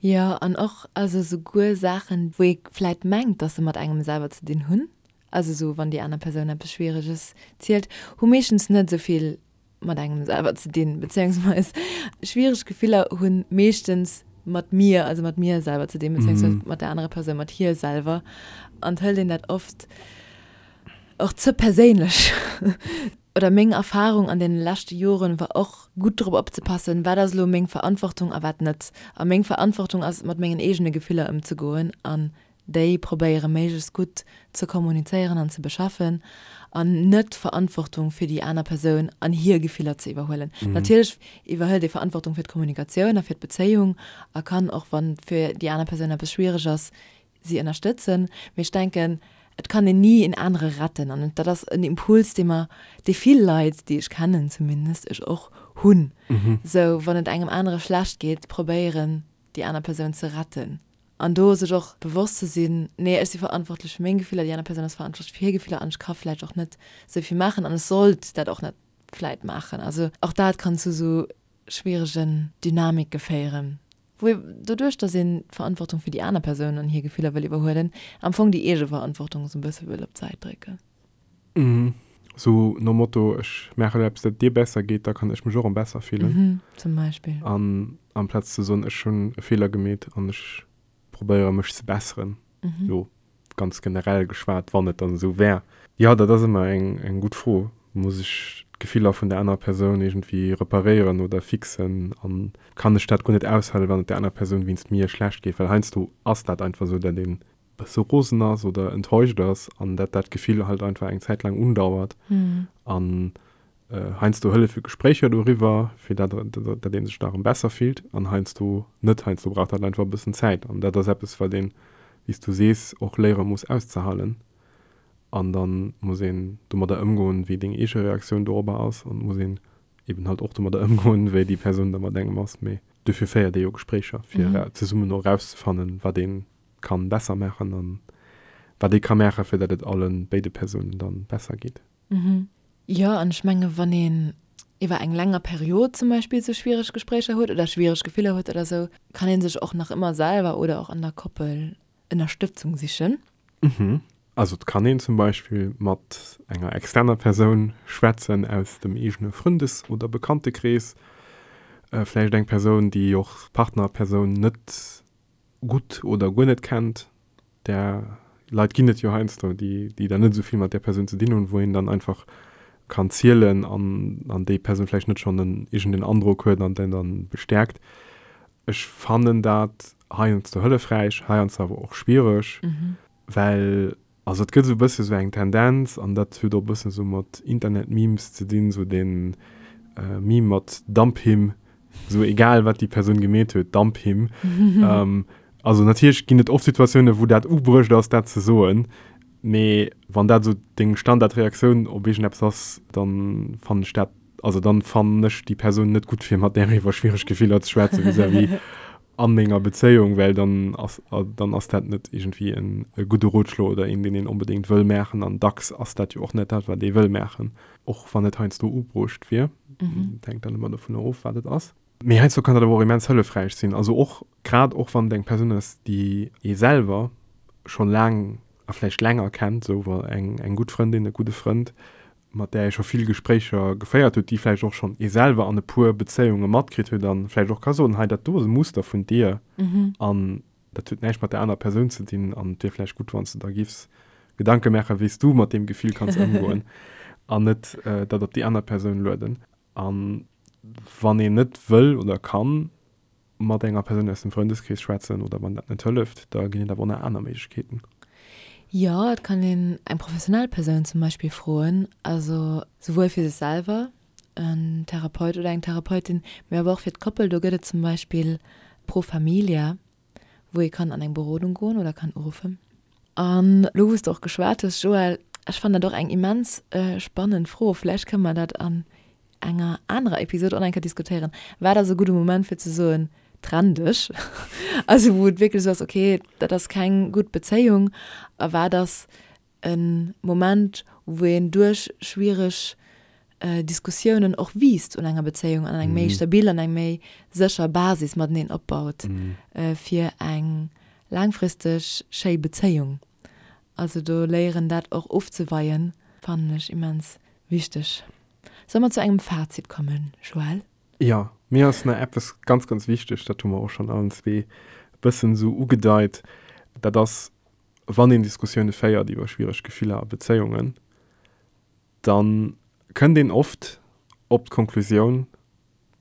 Jo, an och also souguer Saachen, wou ee vläit mengt, dass se mat engem selwer ze dinn hunn, also esou wann déi aner Persoun eppes Schwiereges zielt, hu meeschtens net esou vill mat engem selwer ze dinn, bezéiungsweis schwiereg Gefiller hu meeschtens mat mir, also mat mir selwer ze dinn, bezéiungsweis mat der anerer Persoun, mat hir selwer. An et hëlt een dat oft och ze perséinlech. Oder meng Erfahrung an deene leschte Joren war och, gutt drop opzepassen, wat ass elo meng Verantwortung a wat net. A meng Verantwortung ass, mat mengen eegene Gefiller ëmzegoen an déi probéiere méiglechst gutt ze kommunizéieren an ze beschaffen an net d'Verantwortung fir déi aner Persoun an hir Gefiller ze iwwerhuelen. Natierlech iwwerhëlt ee Verantwortung fir d'Kommunikatioun a fir d'Bezéiung a kann och, wann fir déi aner Persoun eppes schwiereg ass, si ënnerstëtzen. Mee ech denken, et kann een ni een anere retten an dat ass en Impuls, dee mer, dee vill Leit, déi ech kennen zumindest, ech och, hunn. Sou, wann et engem anere schlecht geet, probéieren, déi aner Persoun ze retten. An do sech och bewosst ze sinn, nee, ech si verantwortlech fir meng Gefiller, déi aner Persoun ass verantwortlech fir hir Gefiller an ech ka vläicht och net esou vill maachen an ech sollt dat och net vläicht maachen. Also och dat kann zu esou schwieregen Dynamike féieren, wou ee doduerch, datt een d'Verantwortung fir déi aner Persoun an hir Gefiller wëll iwwerhuelen, am Fong déi eege Verantwortung esou e bësse wëll op d'Säit drécken. Sou nom Motto, ech maache elo eppes, dat et dir besser geet, da kann ech mech och erëm besser fillen. Zum Beispill. An amplaz ze soen, ech hunn e Feeler gemeet an ech probéiere mech ze besseren, elo ganz generell geschwat, wann et dann esou wär. Jo, dat ass ëmmer eng eng gutt Fro. Muss ech d'Gefiller vun der anerer Persoun iergendwéi reparéieren oder fixen? An kann ech dat guer net aushalen, wann et der anerer Persoun wéinst mir schlecht geet? Well heiansdo ass dat einfach esou, datt een bësse rosen ass oder enttäuscht ass an dat dat Gefill halt einfach eng Zäit laang undauert. An heiansdo hëllefe Gespréicher doriwwer, fir dat dat ee sech da erëm besser fillt an heiansdo net. Heiansdo brauch dat einfach e bëssen Zäit an dat ass eppes, wat een, wéi s du sees, och léiere muss auszehalen. An da muss een domadder ëmgoen, wéi deng eege Reaktioun dorobber ass an muss een eben halt och domadder ëmgoen, wéi déi Persoun da mat engem ass. Mee dofir féiert ee jo Gespréicher, fir zesummen och erauszefannen, wat een kann besser maachen an wat ee ka maachen, fir dat et allen béide Persounen dann besser geet. Jo, an ech menge wann een iwwer eng länger Period zum Beispill sou schwiereg Gespréicher huet oder schwiereg Gefiller huet oder sou, kann ee sech och nach ëmmer selwer oder och an der Koppel Ënnerstëtzung sichen. Also et kann een zum Beispill mat enger externer Persoun schwätzen aus dem eegene Frëndes oder Bekanntekrees, vläicht eng Persoun, déi och d'Partnerpersoun net gutt oder guer net kennt, där Leit ginn et jo heiansdo, déi déi dann net esou vill mat där Persoun ze dinn hunn, wou een dann einfach kann zielen an an déi Persoun vläicht net schonn en iergendeen Androck huet an den dann bestäerkt. Ech fannen dat heiansdo hëllefräich, heiansdo awer och schwiereg, well Also et gëtt esou e bësse sou eng Tendenz, an dat huet och e bëssen esou mat Internet-Memes ze dinn, esou dee Meme mat Dump him, esou egal wat déi Persoun gemeet huet, dump him. Also natierlech ginn et oft Situatiounen, wou dat ubruecht ass, dat ze soen, mee wann dat esou deng Standardreaktioun op iergendeppes ass, dann fannen ech dat, also dann fannen ech déi Persoun net gutt fir mat där iwwer schwiereg Gefiller ze schwätzen vis-à-vis a menger Bezéiung, well dann ass dann ass dat net iergendwéi en e gudde Rotschlo oder een, deen een onbedéngt wëll maachen. An dacks ass dat jo och net dat, wat ee wëll maachen, och wann et heiansdo ubruecht wier. Dat hänkt dann ëmmer dovunner of, wat et ass. Mee heiansdo kann dat awer och immens hëllefräich sinn. Also och, grad och wann et eng Persoun ass, déi ee selwer schonn laang a vläicht länger kennt, esou eng eng gutt Frëndin, e gudde Frënd, mat där ee scho vill Gespréicher geféiert huet, déi vläicht och schonn ee selwer an e puer Bezéiunge matkritt huet a vläicht och ka soen, hei dat do ass e Muster vun dir an dat huet näischt mat där anerer Persoun ze dinn an et wier vläicht gutt, wann s de der giffs Gedanke maachen, wéi s du mat deem Gefill kanns ëmgoen an net dat op déi aner Persoun lueden. A wann een net wëll oder kann mat enger Persoun aus dem Frëndeskrees schwätzen oder wann dat net hëlleft, da ginn et awer och nach aner Méiglechkeeten. Jo, et kann een eng professionell Persoun zum Beispill froen, also souwuel fir sech selwer, en Therapeut oder eng Therapeutin, mee awer och fir d'Koppel. Do gëtt et zum Beispill Pro Familia, wou ee kann an eng Berodung goen oder kann uruffen. An elo wou s de och geschwat hues, Joël, ech fannen dat och eng immens spannend Fro, vläicht kënne mer dat an enger anerer Episod och nach eng Kéier diskutéieren, Wat ass e gudde Moment fir ze soen, Trenn dech. Also wou et wierklech esou ass, okay, dat ass keng gutt Bezéiung a wat ass e Moment, wou een duerch schwiereg Diskussiounen och wiisst un enger Bezéiung an eng méi stabil an eng méi sécher Basis mateneen opbaut fir eng laangfristeg schéi Bezéiung. Also do léieren dat och ofzeweien, fannen ech immens wichteg. Solle mer zu engem Fazit kommen, Joël? Jo, mir ass nach eppes ganz, ganz wichteg, dat hu mer och schonn allen zwee e bëssen esou ugedeit, dat ass, wann een Diskussioune féiert iwwer schwiereg Gefiller a Bezéiungen, da kënnt een oft op d'Konklusioun,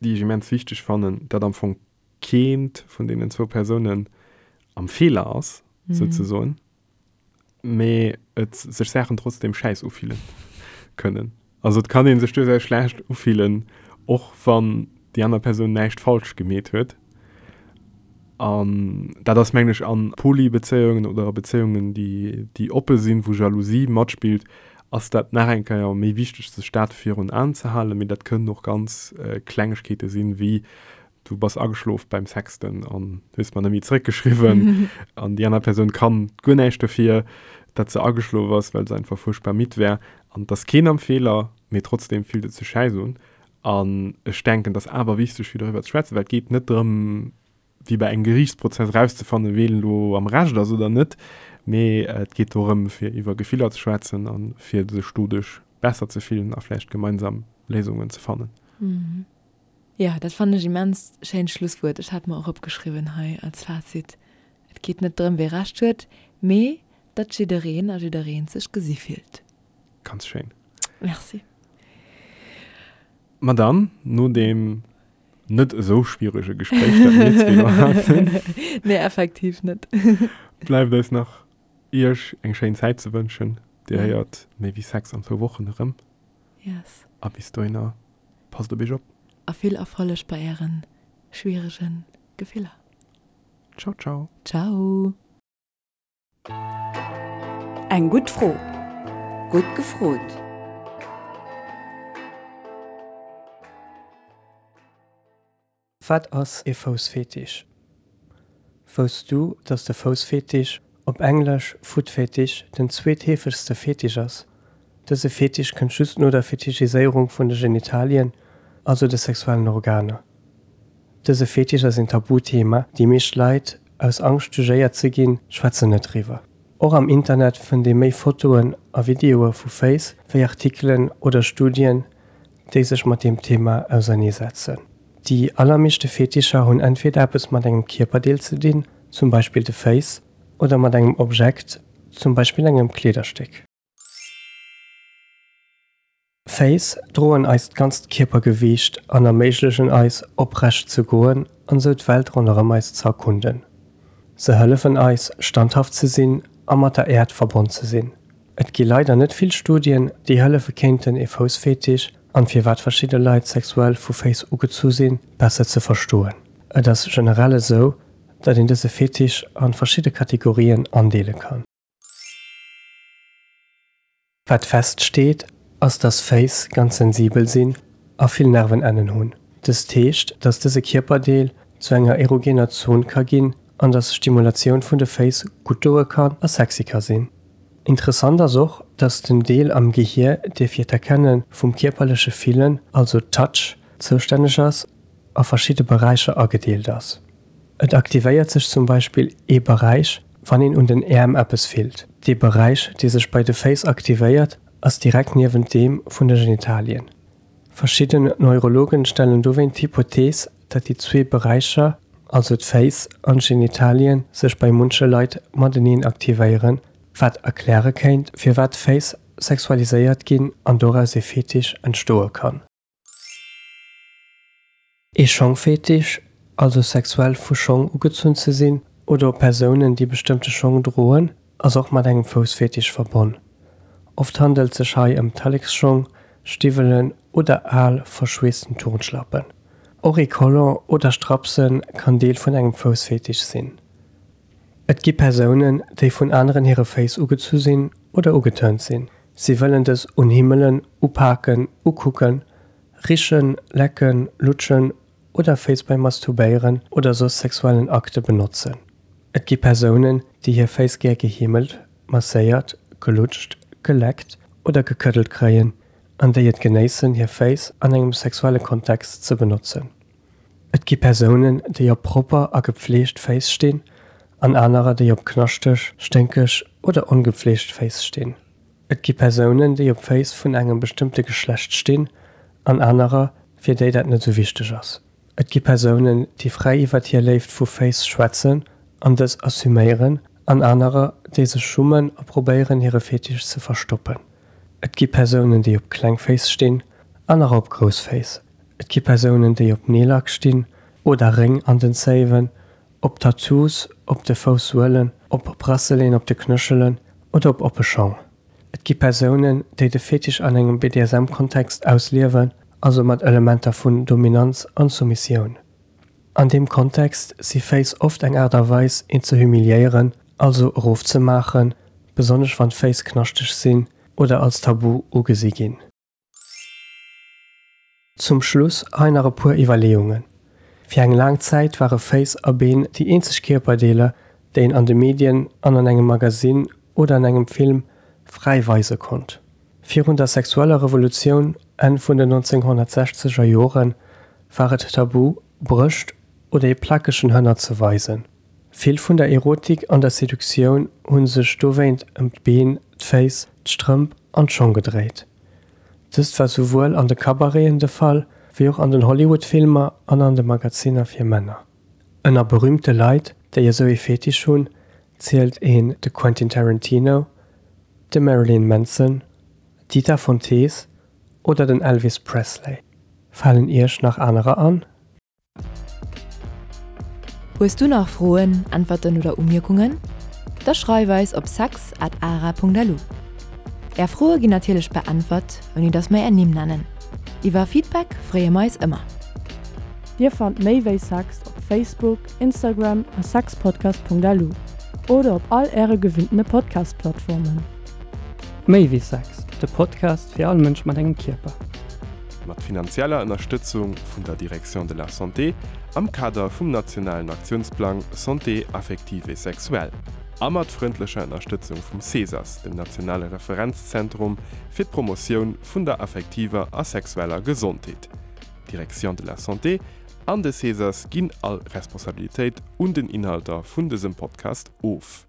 déi ech immens wichteg fannen, datt am Fong keent vun deenen zwou Persounen am Feeler ass, souzesoen. mee et sech Saachen trotzdem schäiss ufille kënnen. Also et kann ee sech duerchaus schlecht ufillen, och wann déi aner Persoun näischt falsch gemeet huet. An dat ass mengen ech a Poly-Bezéiungen oder a Bezéiungen déi déi oppe sinn, wou Jalousie matspillt, ass dat nach eng Kéier méi wichteg sech dat virun Aen ze halen. Mee dat kënnen och ganz Klengegkeete sinn, wéi du bass ageschlof beim Sexten an hues mer net méi zeréckgeschriwwen an déi aner Persoun kann guer näischt dofir, datt se ageschlof ass, well se einfach fuerchtbar midd war an et ass keen am Feeler, mee trotzdem fillt et sech schäiss un. An ech denken, et ass awer wichteg fir doriwwer ze schwätzen, well et geet net drëm, wéi bei engem Geriichtsprozess erauszefannen, ween elo am Recht ass oder net, mee et geet dorëm, fir iwwer Gefiller ze schwätzen a fir sech doduerch besser ze fillen a vläicht gemeinsam Léisungen ze fannen. Jo, dat fannen ech immens schéint Schlusswuert. Ech hat mer och opgeschriwwen hei als Fazit, Et geet net drëm, wee Recht huet, mee datt jiddereen a jiddereent sech gesi fillt. Ganz schéin. Merci. Ma dann, no deem net esou schwierege Gespréich, dat mir zwee elo haten. Nee, effektiv net. Bleift eis nach, Iech eng schéin Zäit ze wënschen. Dir héiert méi wéi Sex an zwou Wochen erëm. Yes. A bis dohinner. Passt op iech op. A vill Erfolleg bei ären schwieregen Gefiller. Ciao ciao. Ciao. Eng gutt Fro. Gutt gefrot. Wat ass ee Foussfetisch? Wousst du, dass de Foussfetisch, op Englesch Foot Fetish, den zweetheefegste Fetisch ass? Dëse Fetisch kënnt just no der Fetischiséierung vun de Genitalien, also de sexuellen Organer. Dëse Fetisch ass een Tabuthema, déi meescht Leit, aus Angscht jugéiert ze ginn, schwätzen net driwwer. Och am Internet fënnt ee méi Fotoen a Videoe vu Féiss wéi Artikelen oder Studien, déi sech mat deem Thema auserneesetzen. Déi allermeeschte Fetischer hunn entweder eppes mat engem Kierperdeel ze dinn, zum Beispill de Féiss, oder mat engem Objekt, zum Beispill engem Kleederstéck. Féiss droen eist ganzt Kierpergewiicht an erméiglechen eis, oprecht ze goen an sou d'Welt ronderëm eis ze erkunden. Se hëllefen eis, standhaft ze sinn a mat der Äerd verbonn ze sinn. Et gi leider net vill Studien, déi hëllefe kéinten ee Foussfetisch an firwat verschidde Leit sexuell vu Féiss ugezu sinn, besser ze verstoen. Et ass generell esou, datt een dëse Fetisch an verschidde Kategorien andeele kann. Wat feststeet, ass dass Féiss ganz sensibel sinn a vill Nervenennen hunn. Dëst heescht, dass dëse Kierperdeel zu enger erogener Zon ka ginn an dass Stimulatioun vun de Féiss gutt doe kann a sexy ka sinn. Interessant ass och, dass den Deel am Gehier, dee fir d'Erkenne vum kierperleche Fillen, also Touch, zoustänneg ass, a verschidde Beräicher agedeelt ass. Et aktivéiert sech zum Beispill ee Beräich, wann een un den Äerm eppes fillt. Dee Beräich, dee sech bei de Féiss aktivéiert, ass direkt niewent deem vun de Genitalien. Verschidden Neurologen stellen dowéint d'Hypothees, datt déi zwee Beräicher, also d'Féiss an d'Genitalien, sech bei munche Leit mateneen aktivéieren, wat erkläre kéint, firwat d'Féiss sexualiséiert ginn an doraus ee Fetisch entstoe kann. Ee Schongfetisch, also sexuell vu Schong ugezunn ze sinn oder op Persounen, déi bestëmmte Schong droen, ass och mat engem Foussfetisch verbonn. Oft handelt sech hei ëm Talleksschong, Stiwwelen oder al, verschweessten Turnschlappen. Och ee Collant oder Strapse kann Deel vun engem Foussfetisch sinn. Et gi Persounen, déi vun aneren hire Féiss ugezu sinn oder ugetörnt sinn. Si wëllen dës unhimmelen, upaken, ukucken, richen, lecken, lutschen. oder Féiss beim Masturbéieren oder soss sexuellen Akte benotzen. Et gi Persounen, déi hir Féiss gär geheemelt, masséiert, gelutscht, geleckt oder gekëddelt kréien an déi et genéissen, hir Féiss an engem sexuelle Kontext ze benotzen. Et gi Persounen, déi op propper a gepfleegt Féiss stinn an anerer, déi op knaschteg, sténkeg oder ongepfleegt Féiss stinn. Et gi Persounen, déi op Féiss vun engem bestëmmte Geschlecht stinn an anerer, fir déi dat net esou wichteg ass. Et gi Persounen, déi fräi iwwert hir Léift vu Féiss schwätzen an dës assuméieren an anerer, déi sech schummen a probéieren, hire Fetisch ze verstoppen. Et gi Persounen, déi op kleng Féiss stinn, anerer op grouss Féiss. Et gi Persounen, déi op Neellack stinn oder Réng an den Zéiwen, op Tattoos op de Foussuelen, op Bracelet'en op de Knöchelen oder op oppe Schong. Et gi Persounen, déi de Fetisch an engem BDSM-Kontext ausliewen, also mat Elementer vun Dominanz an Soumissioun. An deem Kontext si Féiss oft eng Aart a Weis, een ze humiliéieren, also erofzemaachen, besonnesch wann d'Féiss knaschteg sinn oder als tabu ugesi ginn. Zum Schluss hei nach e puer Iwwerleeungen. Fir eng laang Zäit ware Féiss a Been déi eenzeg Kierperdeeler, déi een an de Medien an an engem Magasinn oder an engem Film fräi weise konnt. Virun der sexueller Revolutioun Enn vun den 1960er Jore war et tabu, Brëscht oder ee plakegen Hënner ze weisen. Vill vun der Erotik an der Seduktioun hu sech dowéint ëm d'Been, d'Féiss, d'Strëmp an d'Schong gedréit. Dëst war souwuel an de Cabareten de Fall, wéi och an den Hollywood-Filmer an an de Magaziner fir Männer. Ënner berüümte Leit, déi esou ee Fetisch hunn, zielt een de Quentin Tarantino, de Marilyn Manson, d'Dita Von Teese oder den Elvis Presley. Falen Iech nach anerer an? Hues du nach Froen, Äntwerten oder Umierkungen? Da schreif eis op sex at ara.lu. Är Froe ginn natierlech beäntwert, ouni dass mer är Nimm nennen. Iwwer Feedback freeë mer eis ëmmer. Dir fannt méi wéi Sex op Facebook, Instagram a sexpodcast.lu oder op all äre gewinntene Podcast-Plattformen. Méi wéi Sex, de Podcast fir all Mënsch mat engem Kierper. Mat finanzieller Ënnerstëtzung vun der Direction de la Santé am Kader vum nationalen Aktiounsplang Santé affective et sexuelle a mat frëndlecher Ënnerstëtzung vum CESAS, dem nationale Referenzzentrum fir d'Promotioun vun der affektiver a sexueller Gesondheet. D'Direction de la Santé an de CESAS ginn all Responsabilitéit un den Inhalter vun dësem Podcast of.